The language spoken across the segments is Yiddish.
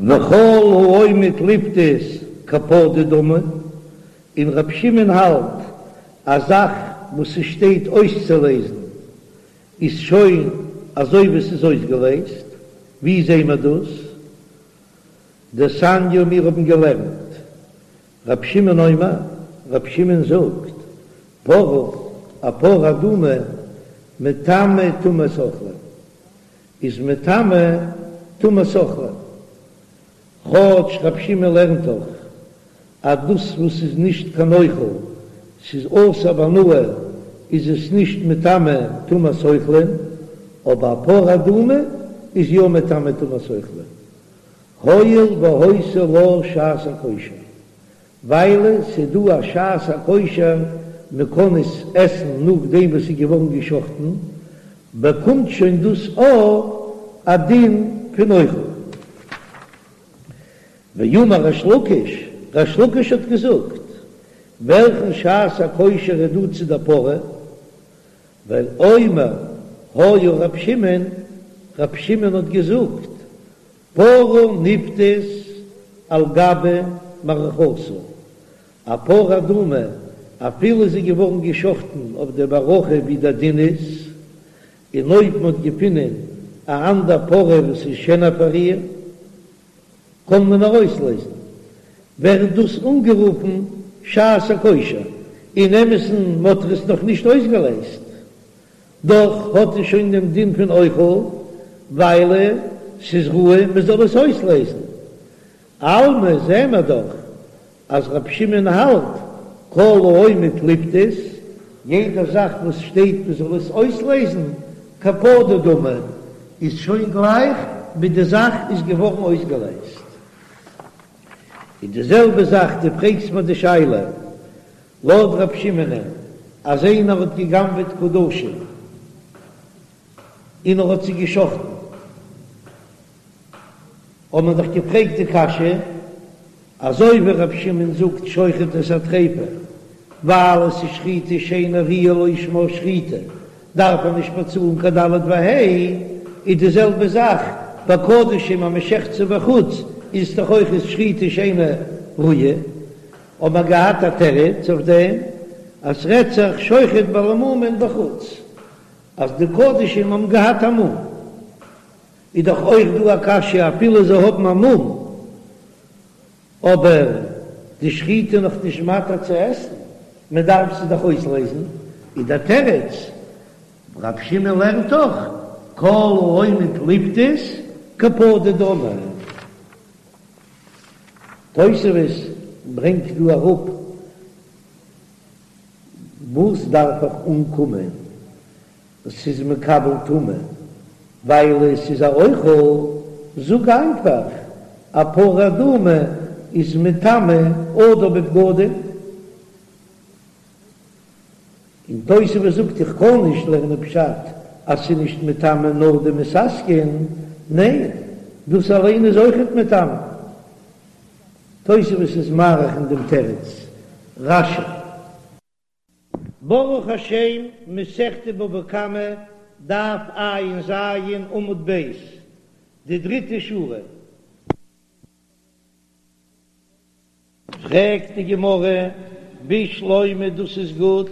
וכל העומד לפדות כפדוי דמי, און ר' שמעון האלט א זאך וואס ס'שטייט אויסצולעזן איז שוין אזוי ווי ס'איז אויסגעלעזט, ווי זעהן מיר דאס? דתניא מיר האבן געלערנט ר' שמעון אומר, ר' שמעון זאגט, פרה, א פרה אדומה, מטמא טומאת אוכלים, איז מטמא טומאת אוכלים, כאטש ר' שמעון לערנט דאך אז דאס וואס איז נישט קיין אוכל, ס'איז אסור בהנאה, איז עס נישט מטמא טומאת אוכלים, אבער א פרה אדומה איז יא מטמא טומאת אוכלים, הואיל והיתה לה שעת הכושר, ווייל ס'איז דא א שעת הכושר מ'קען עס עסן נאכדעם וואס ס'איז געווארן געשחטן, באקומט שוין דאס אויך א דין פון אוכל. ואמר ריש לקיש, ריש לקיש האט געזאגט, וועלכן שעת הכושר איז דא צו דער פרה? ווייל אומר היה ר' שמעון, ר' שמעון האט געזאגט, פרה נפדית על גבי מערכתה, א פרה אדומה אפילו זי איז געווארן געשחטן אויף די מערכה ווי דער דין איז, און אויב מען האט געפונען א אנדער פרה וואס איז שענער פאר איר, קען מען איר אויסלעזן, ווערט דאס אנגערופן שעת הכושר, אין אמת'ן מ'האט עס נאך נישט אויסגעלעזט, דאך האט עס שוין דעם דין פון אוכל, ווייל ס'איז ראוי מ'זאל עס אויסלעזן. אלמא זעען מיר דאך אז רבי שמעון האלט כל העומד לפדות, יעדע זאך וואס שטייט מ'זאל עס אויסלעזן, כפדוי דמי, איז שוין גלייך ווי די זאך איז געווארן אויסגעלעזט. און די זעלבע זאך דו פרעגסט מיר די שאלה לויט רב שמעונ'ען אז איינער האט גע'גנב'עט קדשים און ער האט זיי גע'שחט'ן, האט מען דאך געפרעגט די קשיא, אזוי ווי רב שמעון זאגט שוחט את הטריפה ווייל עס איז שחיטה שאינה ראויה לא שמה שחיטה דארף ער נישט באצאלן קיין ד' וה', איז די זעלבע זאך ביי קדשים אז מען שעכט זיי בחוץ איז דאך אויך איז שחיטה שאינה ראויה, האט מען געהאט א תירוץ אויף דעם אז ס'רעדט זיך שוחט בעלי מומין בחוץ אז די קדשים האבן געהאט א מום, איז דאך אויך דא א קשיא אפילו זיי האבן א מום אבער די שחיטה נאך נישט מתיר צו עסן, מען דארף זי דאך אויסלעזן, איז דער תירוץ, רב שמעון לערנט דאך כל העומד לפדות כפדוי דמי. תוספות ברענגט דא אראפ וואס דארף איך אנקומען ס'איז מקבל טומאה ווייל עס איז א אוכל, זאג איינפאך א פרה אדומה איז מטמא אדם בבגדים, און תוספות זאגט איך קען נישט לערנען פשט אז ס'איז נישט מטמא נאר די מתעסקין, ניין דאס אליין איז אויכעט מטמא. תוספות איז מאריך אין דעם תירוץ רש"י. ברוך השם, מסכת בבא קמא, דף ע"ז, עמוד ב', די דריטע שורה. פרעגט די גמרא, בשלמא דאס איז גוט,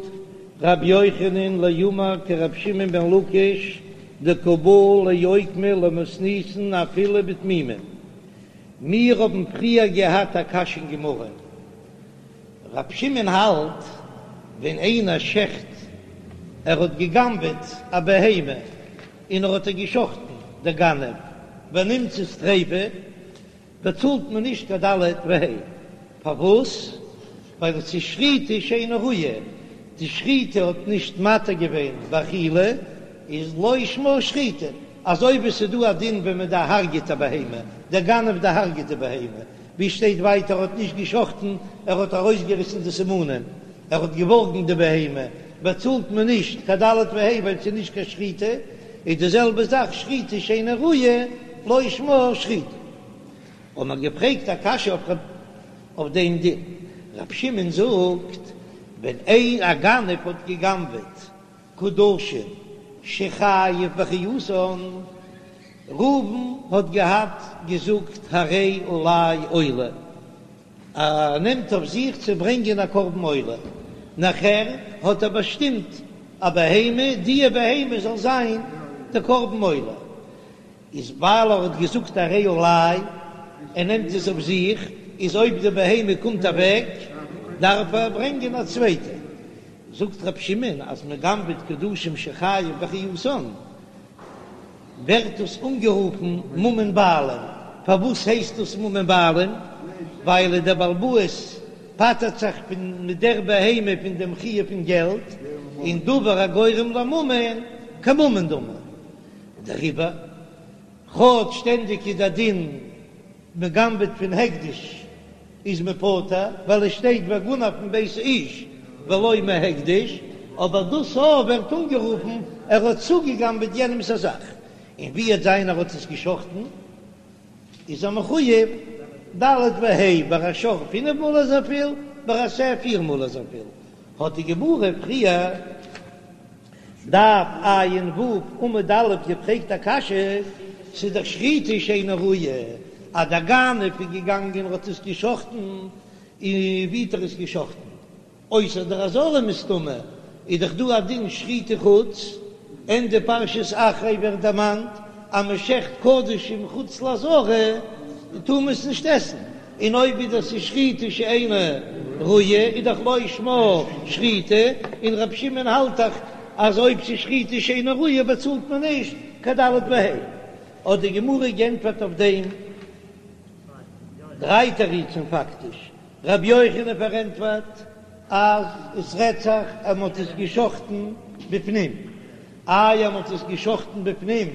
רבי יוחנן לאומר כרבי שמעון בן לקיש דקא בעי לאוקמא למתניתין אפילו בתמימין. מיר האבן פריער געהאט א קשיא אין גמרא. ר' שמעון האלט ווען איינער שעכט ער האט געגנבעט א בהמה און ער האט איר געשחטן דער גנב ונמצאת טריפה באצאלט מען נישט קיין ד' וה' פארוואס ווייל עס איז שחיטה שאינה ראויה די שחיטה האט נישט מתיר געווען באכילה איז לא שמה שחיטה אזוי ווי עס איז דא א דין ווען מען דערהרגעט א בהמה דער גנב דערהרגעט די בהמה ווי שטייט ווייטער ער האט נישט געשחטן ער האט ארויסגעריסן די סימנים ער האט געווארגן די בהמה באצאלט מען נישט קיין ד' וה' ווייל ס'איז נישט קיין שחיטה, איז די זעלבע זאך שחיטה שאינה ראויה לא שמה שחיטה. האט מען געפרעגט א קשיא אויף אויף דעם דין, ר' שמעון זאגט ווען איין א גנב האט געגנבעט קדשים שחייב באחריותן. ראובן האט געהאט געזאגט הרי עלי עולה, ער נעמט אויף זיך צו ברענגען א קרבן עולה, נאכער האט ער באשטימט א בהמה, דיע בהמה זאל זיין די קרבן עולה, איז ווייל ער האט געזאגט הרי עלי, ער נעמט עס אויף זיך, איז אויב די בהמה קומט אוועק דארף ער ברענגען א צווייטע. זאגט ר' שמעון אז מען גנב'עט קדשים שחייב באחריותן, ווערט דאס אנגערופן ממון בעלים. פארוואס הייסט דאס ממון בעלים? ווייל דער בעל הבית פטר'ט זיך פון מיט דער בהמה פון דעם חיוב פון געלט, און דבר הגורם לממון כממון דמי. דעריבער, כאטש שטענדיג איז דער דין מען גנב'עט פון הקדש איז מען פטור, ווייל עס שטייט וגנב מבית האיש ולא מהקדש, אבער דאס א ווערט אנגערופן ער האט צוגעגנב'עט יענעמ'ס א זאך, און ווי וועט זיין ער האט עס גע'שחט'ן איז ער מחוייב ד' וה', ביי א שור פינף מאל אזויפיל, ביי א שה פיר מאל אזויפיל, האט די גמרא פריער. דף ע"ו עמוד א' געפרעגט א קשיא, ס'איז דאך שחיטה שאינה ראויה, אז דער גנב איז געגאנגען און האט עס געשחטן, און ווי האט ער עס געשחטן? אויסער דער עזרה מסתמא, איז דאך דא א דין שחוטי חוץ, ענדע פרשת אחרי ווערט דערמאנט אז מען שעכט קדשים חוץ לעזרה טאר מען עס נישט עסן, און אויב איז דאס שחיטה שאינה ראויה איז דאך לא שמה שחיטה, און רבי שמעון האלט דאך אז אויב ס'איז שחיטה שאינה ראויה באצאלט מען נישט קיין ד' וה'. האט די גמרא גענטפערט אויף דעם דריי תירוצים פאקטיש, רבי יוחנן פארענטפערט אז עס רעדט זיך אז מען האט עס געשחטן בפנים, איי אז מען האט עס געשחטן בפנים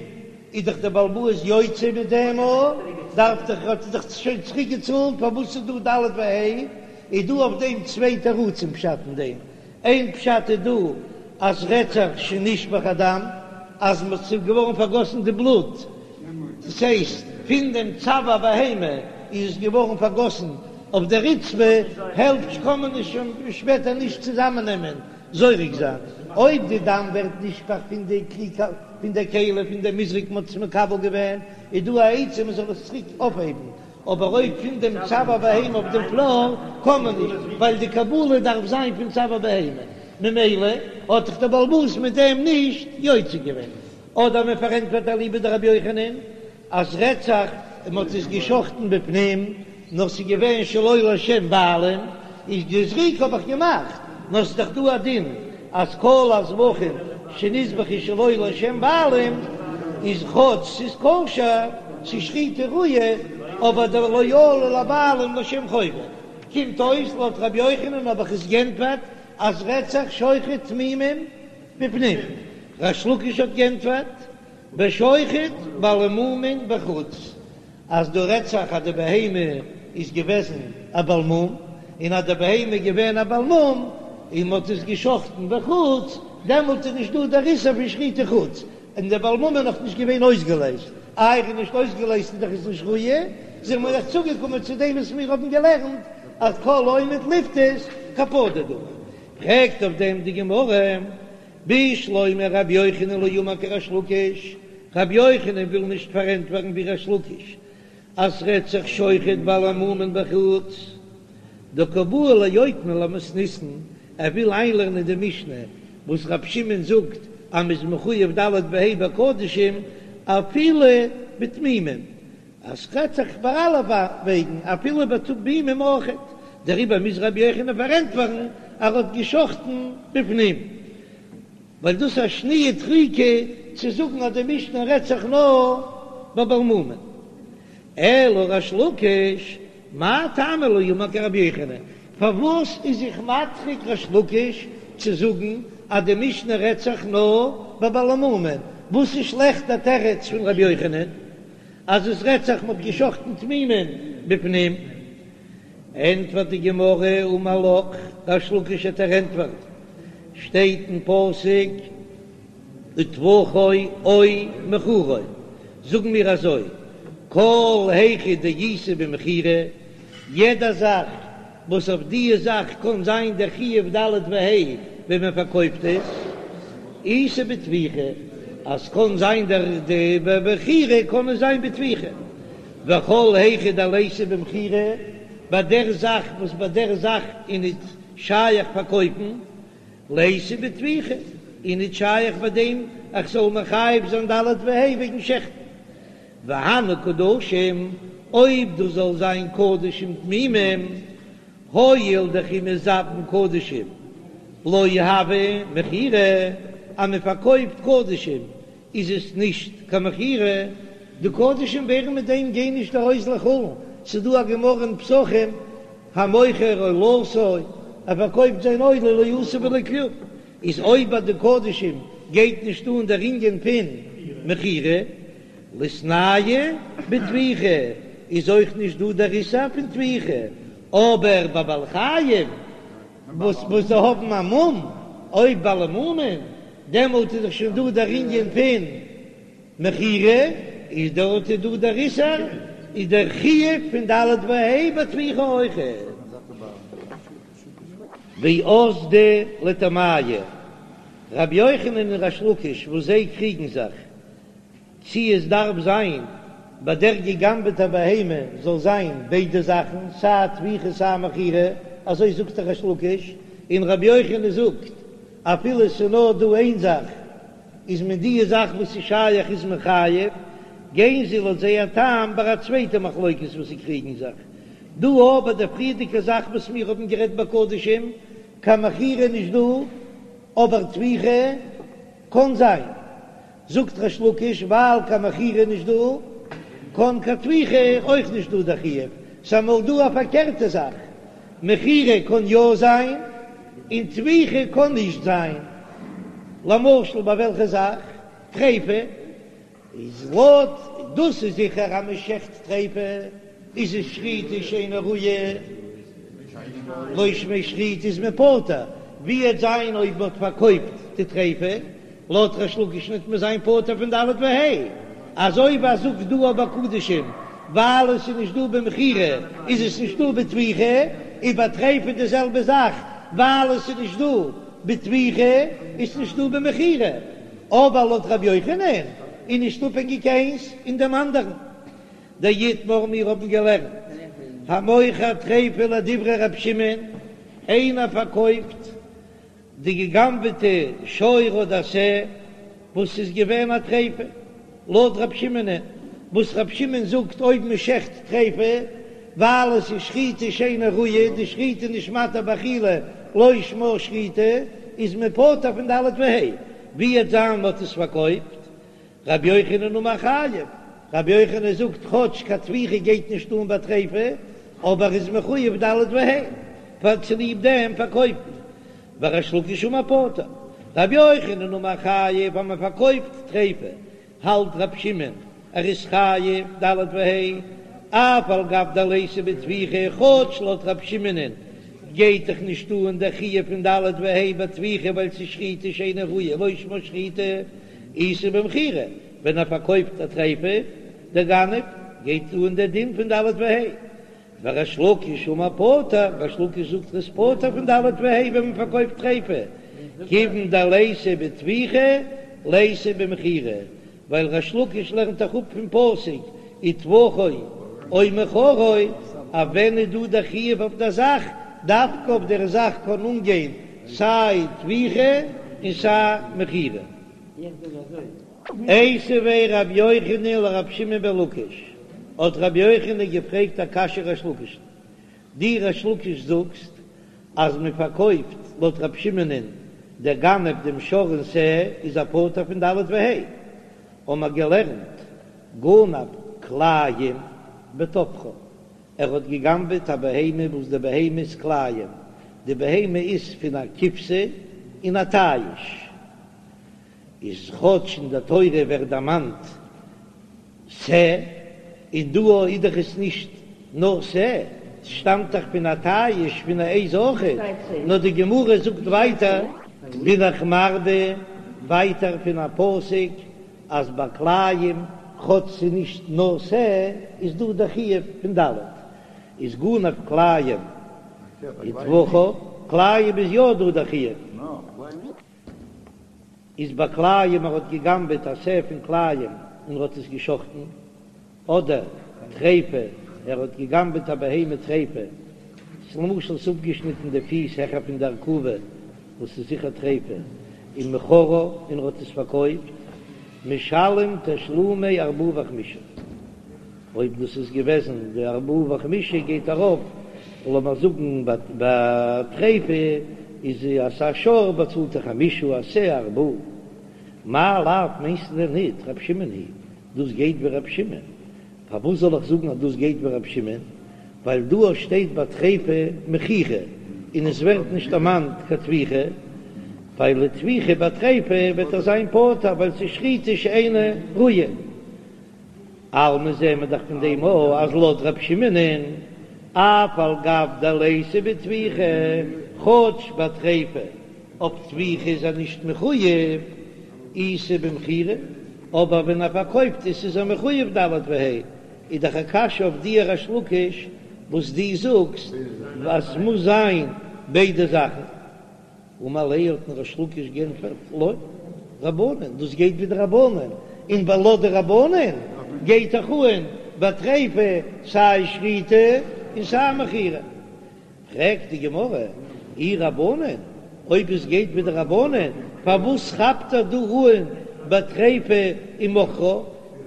איז דאך דער בעל הבית יוצא מיט דעם א, דארף דאך האט ער דאך שוין צוריק געצאלט, פארוואס איז דא ד' וה'? איז דא אויף דעם צוויי תירוצים פשט אין דעם, איין פשט איז דא אז רעדט זיך שנשפך הדם אז ס'איז געווארן פארגאסן די בלוט, דאס הייסט פון דעם צוואר בהמה איז עס געווארן פארגאסן אויף די רצפה, העלפט קען מען עס שוין שפעטער נישט צוזאמען נעמען זורק זיין, אויב די דם ווערט נשפך פון די כלי פון די כלי פון די מזרק מען האט עס מקבל געווען, איז דא א עצה מען זאל עס צוריק אויפהייבן, אבער אויב פון דעם צוואר בהמה אויף דעם פלאר קען מען נישט, ווייל די קבלה דארף זיין פון צוואר בהמה, ממילא האט זיך דער בעל הבית מיט דעם נישט יוצא געווען. אדער מען פארענטפערט אליבא דרבי יוחנן אז רעדט זיך מען האט עס געשחטן בפנים נאר ס'איז געווען שלא לשם בעלים, איז די זריקה האב איך געמאכט, נאר ס'איז דאך דא א דין אז כל הזבחים שנזבחו שלא לשם בעלים איז כאטש ס'איז כשר, ס'איז שחיטה ראויה, אבער דער לא עלו לבעלים לשם חובה. קומט אויס לויט רבי יוחנן האב איך עס גענטפערט אז רעדט זיך שוחט תמימים בפנים. ריש לקיש האט גענטפערט בשוחט בעלי מומין בחוץ, אז דא רעדט זיך אז די בהמה איז געוועזן א בעל מום, און אז די בהמה איז געווען א בעל מום און מען האט עס געשחטן בחוץ, דעמאלט איז נישט דא דער איסור פון שחוטי חוץ, און דער בעל מום איז נאך נישט געווען אויסגעלייזט, איי ער איז נישט אויסגעלייזט איז דאך עס נישט ראוי, זענען מיר דאך צוגעקומען צו דעם וואס מיר האבן געלערנט אז כל העומד לפדות כפדוי דמי. פרעגט אויף דעם די גמרא, בשלמא רבי יוחנן לא אמר כריש לקיש, רבי יוחנן וויל נישט פארענטפערן ווי ריש לקיש אז ס'רעדט זיך שוחט בעלי מומין בחוץ, דקא בעי לאוקמא למתניתין, ער וויל איינלערנען די משנה וואס רבי שמעון זאגט אז מ'איז מחויב ד' וה' בקדשים אפילו בתמימים, אז ס'רעדט זיך ביי אלע וועגן אפילו בתמימים אויכעט, דעריבער מוז רבי יוחנן פארענטפערן אז ער האט געשחטן בפנים, ווייל דאס איז א שניה דחיקא צו זאגן אז די משנה רעדט זיך נאר ביי בעל מומין. אלא ריש לקיש, מאי טעמא לא אמר כרבי יוחנן, פארוואס איז זיך מדחיק ריש לקיש צו זאגן אז די משנה רעדט זיך נאר ביי בעלי מומין, וואס איז שלעכט דער תירוץ פון רבי יוחנן? אז עס רעדט זיך מ'האט געשחטן תמימים בפנים, ענטפערט די גמרא אמר לך, ריש לקיש וועט דיר ענטפערן, שטייט אין פסוק וטבחו או מכרו, זאגן מיר אזוי, כל היכא דאיתיה במכירה, יעדע זאך וואס אויף דיע זאך קען זיין דער חיוב ד' וה' ווען מען פארקויפט עס, איתיה בטביחה. אז קאן זיין דער די במכירה קאן עס זיין בטביחה, וכל היכא דליתא במכירה, ביי דער זאך וואס ביי דער זאך איז ניט שייך פארקויפן, ליתא בטביחה, איז ניט שייך ביי דעם איך זאל מחייב זיין ד' וה' וועגן שעכטן. והני קדשים, אויב דאס זאל זיין קדשים תמימים, הואיל דכי מזבין קדשים לא הוי מכירה, אז מען פארקויפט קדשים איז עס נישט קיין מכירה, די קדשים ווערן מיט דעם גיין נישט ארויס לחולין, ס'איז דא א גמרא אין פסחים המוכר עולתו, ער פארקויפט זיין עולה לא עשה ולא כלום, איז אויב ביי די קדשים גייט נישט אן דער ענין פון מכירה, ליתנהו בטביחה איז אויך נישט דא דער איסור פון טביחה, אבער ביי בעלי חיים וואס וואס זיי האבן א מום, אויב בעלי מומין, דעמאלט איז דאך שוין דא דער ענין פון מכירה, איז דארט איז דא דער איסור, איז דער חיוב פון ד' וה' בטביחה אויכעט. ואזדו לטעמייהו, רבי יוחנן און ריש לקיש וואס זיי קריגן זיך צי עס דארף זיין ביי דער געגנבעטע בהמה זאל זיין ביידע זאכן סיי טביחה סיי מכירה, אזוי זאגט דער ריש לקיש, און רבי יוחנן זאגט אפילו עס איז נאר דא איין זאך איז מען די זאך וואס איז שייך איז מען חייב, גייען זיי לויט זייער טעם ביי א צווייטע מחלוקת וואס זיי קריגן זיך דא אבער די פריערדיגע זאך וואס מיר האבן גערעדט ביי קדשים קיין מכירה נישט דא אבער טביחה קאן זיין. זאגט ריש לקיש ווייל קיין מכירה נישט דא, קאן קיין טביחה אויך נישט דא דער חיוב, ס'איז אמאל דא א פארקערטע זאך, מכירה קאן יא זיין און טביחה קאן נישט זיין, למשל ביי וועלכע זאך? טריפה איז לויט דאס איז זיכער אז מ'שעכט טריפה איז עס שחיטה שאינה ראויה, לא שמה שחיטה איז מען פטור, ווי וועט זיין אויב מ'האט פארקויפט די טריפה? לויט ריש לקיש וועט מען זיין פטור פון ד' וה', אזוי ווי ער זאגט דא ביי קדשים, ווייל עס איז נישט דא במכירה איז עס נישט דא בטביחה, און ביי טריפה די זעלבע זאך, ווייל עס איז נישט דא בטביחה איז נישט דא במכירה, אבער לויט ר' יוחנן איז נישט אפהענגיק איינס אין דעם אנדערן. דאיתמר מיר האבן געלערנט המוכר טריפה לדברי ר' שמעון, איינער פארקויפט די געגנבעטע שור אדער שה וואס איז געווען א טריפה, לויט רב שמעונ'ען, וואס רב שמעון זאגט אויב מען שעכט טריפה ווייל עס איז שחיטה שאינה ראויה, די שחיטה איז נישט מתיר באכילה לא שמה שחיטה, איז מען פטור פון ד' וה', ווי וועט זיין מען האט עס פארקויפט רבי יוחנן אמר חייב, רבי יוחנן זאגט כאטש קיין טביחה גייט נישט אן ביי טריפה, אבער איז מחויב ד' וה' פאר צוליב דעם פארקויפן, וריש לקיש אמר פטור, רבי יוחנן אמר חייב אז מען פארקויפט טריפה, האלט רבי שמעון ער איז חייב ד' וה', אף על גב דליתא בטביחה, כאטש לויט רבי שמעונ'ען גייט דאך נישט אן דער חיוב פון ד' וה' בטביחה ווייל ס'איז שחיטה שאינה ראויה לא שמה שחיטה, איתא במכירה, ווען ער פארקויפט א טריפה, דער גנב, גייט אן דער דין פון ד' וה'. וריש לקיש אמר פטור, ריש לקיש זאגט ער איז פטור פון ד' וה' ווען מען פארקויפט טריפה, כיוון דליתא בטביחה ליתא במכירה, ווייל ריש לקיש לערנט דאך אפ פון פסוק וטבחו או מכרו, אז ווען איז דא דער חיוב אויף דער זאך, דווקא אויף דער זאך קען אנגיין סיי טביחה און סיי מכירה. איתיביה רבי יוחנן לרבי שמעון בן לקיש, האט רבי יוחנן געפרעגט א קשיא ריש לקיש'ן, דו ריש לקיש זאגסט אז מען פארקויפט לויט רבי שמעונ'ען דער גנב דעם שור און שה איז ער פטור פון ד' וה', האבן מיר געלערנט גנב כלאים וטבחה, ער האט געגנבעט א בהמה וואס די בהמה איז כלאים, די בהמה איז פון א כבשה און א תיש, איז כאטש אין די תורה ווערט דערמאנט שה, און דא איז דאך עס נישט נאר שה, ס'שטאמט דאך פון א תיש פון א עז אויכעט, נאר די גמרא זאגט ווייטער, בין איך מרבה ווייטער פון א פסוק אז ביי כלאים כאטש ס'איז נישט נאר שה איז דא דער חיוב פון ד' איז גנב כלאים וטבחה, כלאים איז יא דא דער חיוב. איז ביי כלאים ער האט געגנבעט א שה פון כלאים און ער האט עס געשחטן, אדער טריפה ער האט געגנבעט א בהמה טריפה, למשל ס'איז אפגעשניטן די פיס העכער פון די ארכובה וואס איז זיכער טריפה, ומכרה און ער האט עס פארקויפט, משלם תשלומי ארבעה וחמישה. אויב דאס איז געוועזן די ארבעה וחמישה גייט ארויף, לאמיר זאגן ביי טריפה איז אז א שור באצאלט ער חמישה א שה ארבעה. מאי לאו מיינסטו דען ניט ר' שמעון היא דאס גייט ווי ר' שמעון? פארוואס זאל איך זאגן אז דאס גייט ווי ר' שמעון? ווייל דא שטייט ביי טריפה מכירה און עס ווערט נישט דערמאנט קיין טביחה, ווייל די טביחה ביי טריפה וועט ער זיין פטור ווייל ס'איז שחיטה שאינה ראויה. אלמא זעהן מיר דאך פון דעם אויך אז לויט ר' שמעונ'ען אף על גב דליתא בטביחה, כאטש ביי טריפה אויף טביחה איז ער נישט מחויב, איתא במכירה, אבער ווען ער פארקויפט עס איז ער מחויב ד' וה', איז דאך א קשיא אויף דיר ריש לקיש וואס דו זאגסט אז ס'מוז זיין ביידע זאכן. אמר ליה האט אים ריש לקיש גענטפערט לא, רבנן, דאס גייט ווי די רבנן, און ווייל לויט די רבנן גייט דאך אן ביי טריפה סיי שחיטה און סיי מכירה. פרעגט די גמרא, אי רבנן, אויב עס גייט ווי די רבנן, פארוואס כאפט ער דא אן ביי טריפה ומכרה,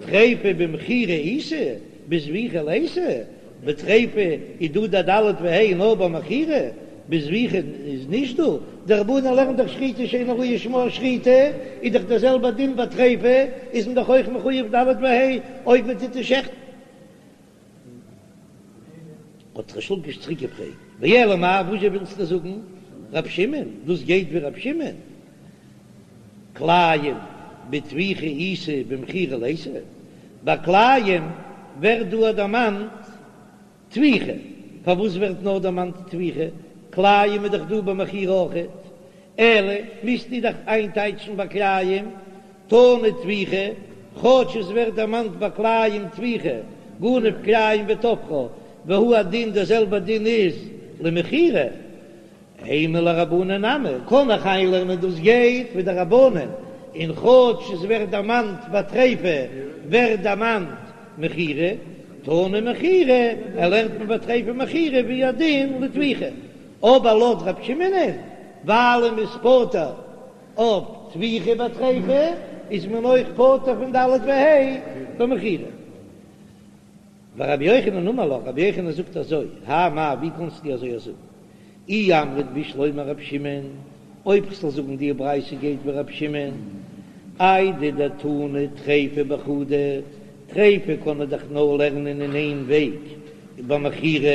טריפה במכירה איתא, בזביחה ליתא, בטריפה איז דא די ד' וה' נאר ביי מכירה, בזביחה איז נישט דא, די רבנן לערנט דאך שחיטה שאינה ראויה שמה שחיטה, איז דאך דער זעלבער דין ביי טריפה, איז מען דאך אויך מחויב ד' וה' אויב מען טוט עס שעכטן. האט ריש לקיש צוריק געפרעגט, ואלא מאי, וואזשע ווילסטו זאגן רב שמעון, דאס גייט ווי רב שמעון, כלאים בטביחה איתא במכירה ליתא, ביי כלאים ווערט דא דערמאנט טביחה, פארוואס ווערט נאר דערמאנט טביחה? כלאים איז דאך דא ביי מכירה אויכעט, אלא מוזטו דאך איינטייטשן ביי כלאים תנא טביחה, כאטש עס ווערט דערמאנט ביי כלאים טביחה, גנב כלאים וטבחה, והוא הדין דער זעלבער דין איז למכירה, אימא לרבנן נמי, קען איך איינלערנען דאס גייט ווי די רבנן, און כאטש עס ווערט דערמאנט ביי טריפה ווערט דערמאנט מכירה, תנא מכירה, ער לערנט מען ביי טריפה מכירה והוא הדין לטביחה, אבער לויט רב שמעונ'ען ווייל מ'איז פטור אויף טביחה ביי טריפה איז מען אויך פטור פון ד' וה' במכירה. ורבי יוחנן אמר לך, רבי יוחנן זאגט אזוי, האי מאי ווי קאנסטו אזוי זאגן? אי אמרת בשלמא רב שמעון, אויב כ'זאל זאגן די ברייתא גייט ווי רב שמעון, איידי דתנא טריפה בחדא, טריפה קען מען דאך נאר לערנען אין איין וועג במכירה,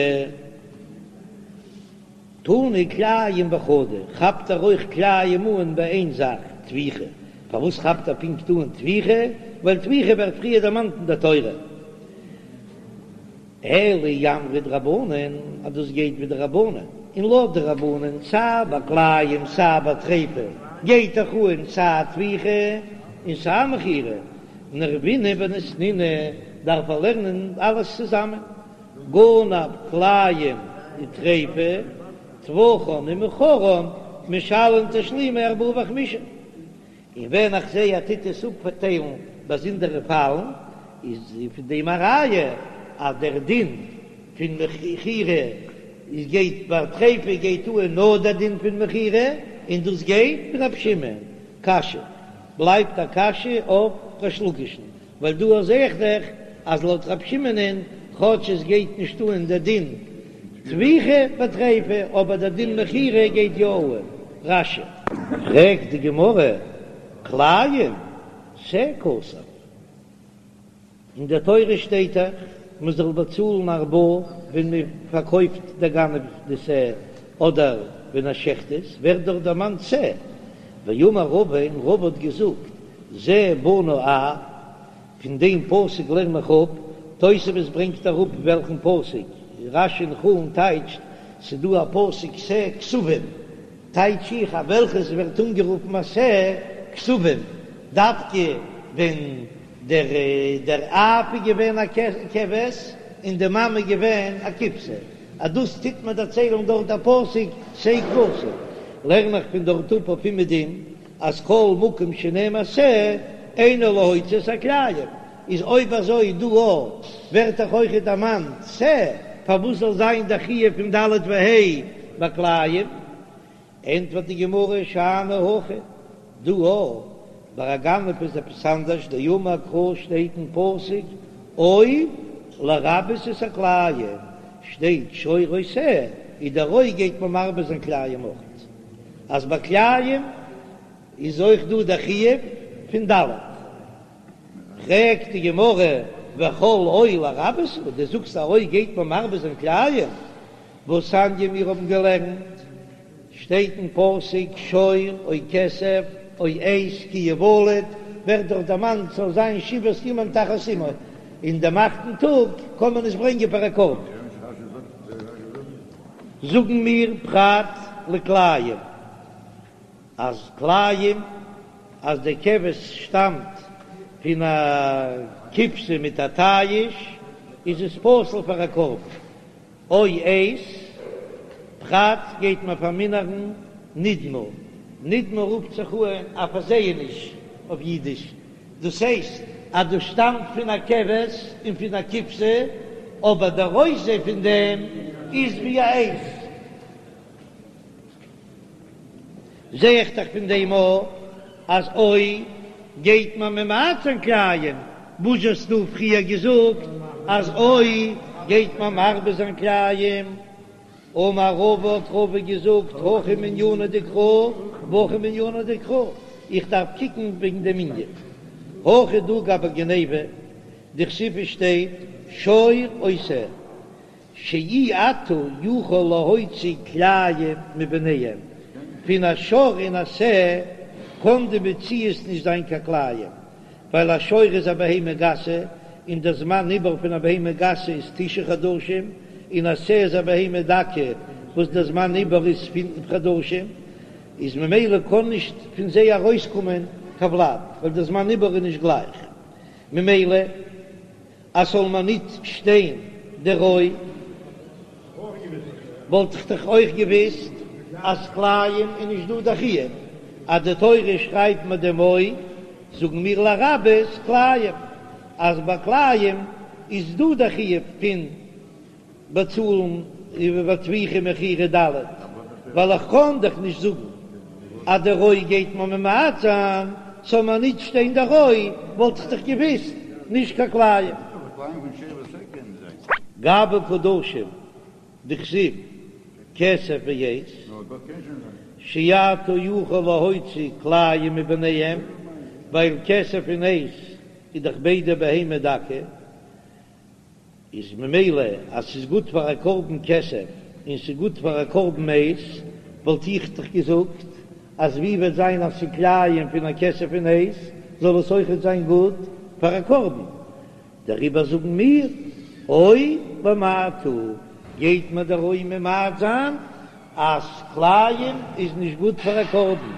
תנא כלאים בחדא, כאפט ער אויך כלאים אן ביי איין זאך, טביחה, פארוואס כאפט ער פונקט אן טביחה? ווייל טביחה ווערט פריער דערמאנט אין דער תורה. אלא אי אמרת רבנן, אז דאס גייט ווי די רבנן, און לויט די רבנן סיי ביי כלאים סיי ביי טריפה גייט דאך אן סיי טביחה און סיי מכירה, נערבינהו וניתנינהו דארף ער לערנען אלעס צוזאמען, גנב כלאים וטריפה, טבחן ומכרן, משלם תשלומי ארבעה וחמישה. און ווען איך זעה ער טוט עס אפטיילן באזונדערע פאלן, איז פון דעם א ראיה אז דער דין פון מכירה איז גייט ביי טריפה גייט אן נאר דער דין פון מכירה, און דאס גייט ווי רב שמעון. קשיא, בלייבט א קשיא אויף ריש לקיש'ן, ווייל דא זעה איך דאך אז לויט רב שמעונ'ען כאטש עס גייט נישט אן דער דין טביחה בטריפה אבער דער דין מכירה גייט יא אן. רש"י. פרעגט די גמרא, כלאים שה כתב, אין דער תורה שטייט דאך מען זאל באצאלן ארבעה ווען מען פארקויפט דער גנב די שה אדער ווען ער שעכט עס, ווערט דאך דערמאנט שה, ואמר רבא, און רבא האט געזאגט, זה בנה אב, פון דעם פסוק לערן איך אפ, תוספות ברענגט אראפ וועלכן פסוק, רש"י אין חולין טייטשט, ס'דא א פסוק שה כשבים, טייטש איך אז וועלכעס ווערט אנגערופן א שה כשבים, דווקא ווען דער דער אב איז געווען א כבש און די מאמע איז געווען א כבשה, אז דאס טוט מען דערציילן דארט דער פסוק שה כבשים, לערן איך פון דארט אפ אויף אומעדום. אז כל מקום שנאמר שה אינו להוציא את הכלאים, איז אויב אזוי דא אויך ווערט דאך אויכעט דערמאנט שה, פארוואס זאל זיין דער חיוב פון ד' וה' ביי כלאים? ענטפערט די גמרא שאני הכא, דא אויך ביי א גנב איז עפעס אנדערש, דאמר קרא שטייט אין פסוק או לרבות את הכלאים, שטייט שור או שה, איז דער או גייט מען מרבה זיין כלאים אויך, אז ביי כלאים איז אויך דא דער חיוב פון ד'. פרעגט די גמרא וכל או לרבות הוא, דו זאגסט א או גייט מען מרבה זיין כלאים, והתניא מיר האבן געלערנט, שטייט אין פסוק שור או כשב או עז כי יולד, ווערט דאך דערמאנט ס'זאל זיין שבעת ימים תחת אמו, און דעם אכטן טאג קען מען עס ברענגען פאר א קרבן. זאגן מיר פרט לכלאים, אז כלאים אז די כבש שטאמט פון א כבשה מיט א תיש איז עס פסול פאר א קרבן. או עז, פרט גייט מען פארמינערן נדמה, נדמה רופט זיך אן א פארזעעניש אויף אידיש, דאס הייסט אז דאס שטאמט פון א כבש און פון א כבשה, אבער דער אויסזע פון דעם איז ווי א עז. זע איך דאך פון דעם אויך אז או גייט מען ממעט זיין כלאים, וואס האסטו פריער געזאגט אז או גייט מען מרבה זיין כלאים? אמר רבא האט רבא געזאגט הכא מענינא דקרא והכא מענינא דקרא, איך דארף קוקן וועגן דעם ענין. הכא דא גבי גניבה דכתיב שטייט שור או שה. שאי אתה יכול להוציא כלאים מביניהם, פון א שור און א שה קען די מציאות נישט זיין קיין כלאים, ווייל א שור איז א בהמה גסה און דער זמן עיבור פון א בהמה גסה איז תשעה חדשים, און א שה איז א בהמה דקה וואס דער זמן עיבור איז פינף חדשים, איז ממילא קען נישט פון זיי ארויסקומען קיין ולד, ווייל דער זמן עיבור איז נישט גלייך, ממילא. אז ס'זאל מיר ניט שטיין דער או, וואלט איך דאך אויך געוואוסט אז כלאים איז נישט דא דער חיוב, אז די תורה שרייבט מיר דעם או, זאגן מיר לרבות כלאים, אז ביי כלאים איז דא דער חיוב פון באצאלן איבער טביחה מכירה ד', ווייל איך קען דאך נישט זאגן אז דער או גייט מיר ממעט זיין, ס'זאל מיר נישט שטיין דער או, וואלט איך דאך געוויסט נישט קיין כלאים. גבי קדשים דכתיב כסף ועז, שאתה יכול להוציא כלאים מביניהם, ווייל כסף און עז איז דאך ביידע בהמה דקה, איז ממילא אז ס'איז גוט פאר א קרבן כסף און ס'איז גוט פאר א קרבן עז, וואלט איך דאך געזאגט אז ווי וועט זיין אז ס'איז כלאים פון א כסף און עז, זאל עס אויכעט זיין גוט פאר א קרבן. דעריבער זאגן מיר, או למעט הוא, גייט מיר דער או ממעט זיין אז כלאים איז נישט גוט פאר א קרבן.